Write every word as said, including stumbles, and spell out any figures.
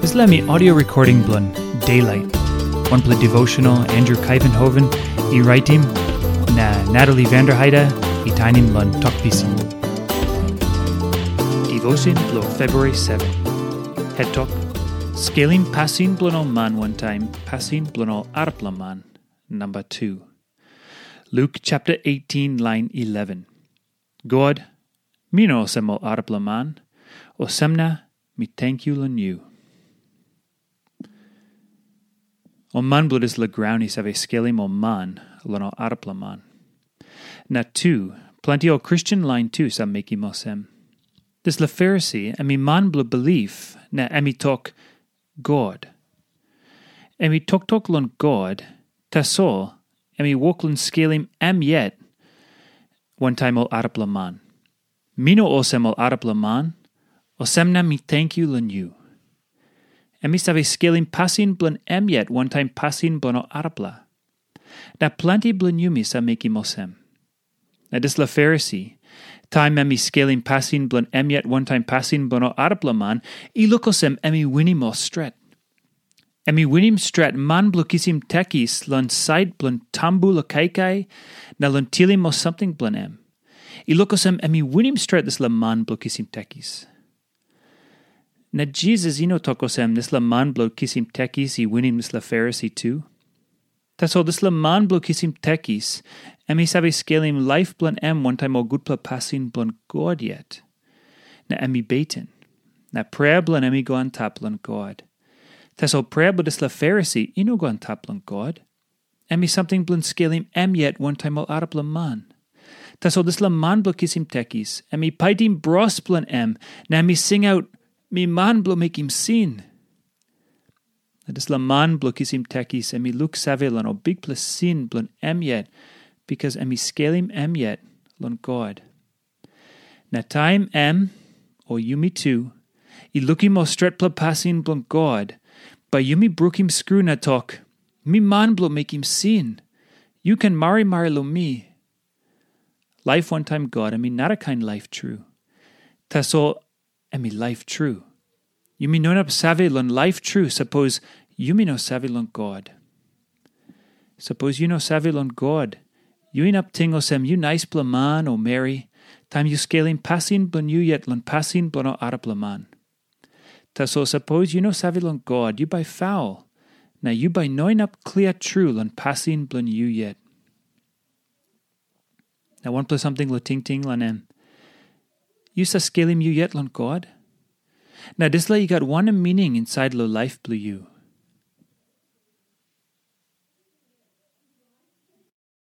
Dispela mi audio recording bilong Daylight, wanpela devotional Andrew Kaivenhoven i raitim, na Natalie Vanderheide i tainim long Tok Pisin. Devotion bilong February seven. Het tok, Skelim pasin bilong ol man wantaim pasin bilong ol arapela man, namba tu. Luk chapter eighteen, lain eleven. God, mi no olsem ol arapela man, olsem na mi tenkyu long yu. Ol man bilong dispela graun i save skelim ol man long ol arapela man. Na tu, planti ol Kristen lain tu save mekim olsem. Dispela Farisi em i man bilong bilip, na em i tok, God. Em i toktok long God, tasol em i wok long skelim em yet wantaim ol arapela man. Mi no olsem ol arapela man, olsem na mi tenkyu long yu. Em i save skelim pasin bilong em yet wantaim pasin bilong ol arapela. Na planti bilong yumi save mekim olsem. Na dispela Farisi, taim em i skelim pasin bilong em yet wantaim pasin bilong ol arapela man, i luk olsem em i winim ol stret. Em i winim stret man bilong kisim tekis long sait bilong tambu long kaikai na long tilim ol samting bilong em. I luk olsem em i winim stret dispela man bilong kisim tekis. Na Jisas i no tok olsem dispela man bilong kisim tekis i winim dispela Farisi tu. Tasol dispela man bilong kisim tekis, em i save skelim laip bilong em wantaim ol gutpela pasin bilong God yet. Na em i beten. Na prea bilong em i go antap long God. Tasol prea bilong dispela Farisi i no go antap long God. Em i samting bilong skelim em yet wantaim ol arapela man. Tasol dispela man bilong kisim tekis, em i paitim bros bilong em, na em i singaut, "Mi man bilong mekim sin." Na dispela man bilong kisim tekis, em i luksave long ol bikpela sin bilong em yet, bikas em i skelim em yet long God. Na taim em, o yumi tu, i lukim ol stretpela pasin bilong God, bai yumi brukim skru na tok, "Mi man bilong mekim sin. Yu ken marimari long mi." Laip wantaim God em i narakain laip tru. Tasol em i laip tru. Yumi no inap save long laip tru sapos yumi no save long God. Sapos yu no save long God, yu inap ting olsem yu naispela man o meri, taim yu skelim pasin bilong yu yet long pasin bilong ol arapela man. Tasol sapos yu no save long God, yu bai faul, na yu bai no inap klia tru long pasin bilong yu yet. Na wanpela samting long tingting long em. Yu save skelim yu yet long God? Na dispela i gat wanem mining insait long laip bilong yu?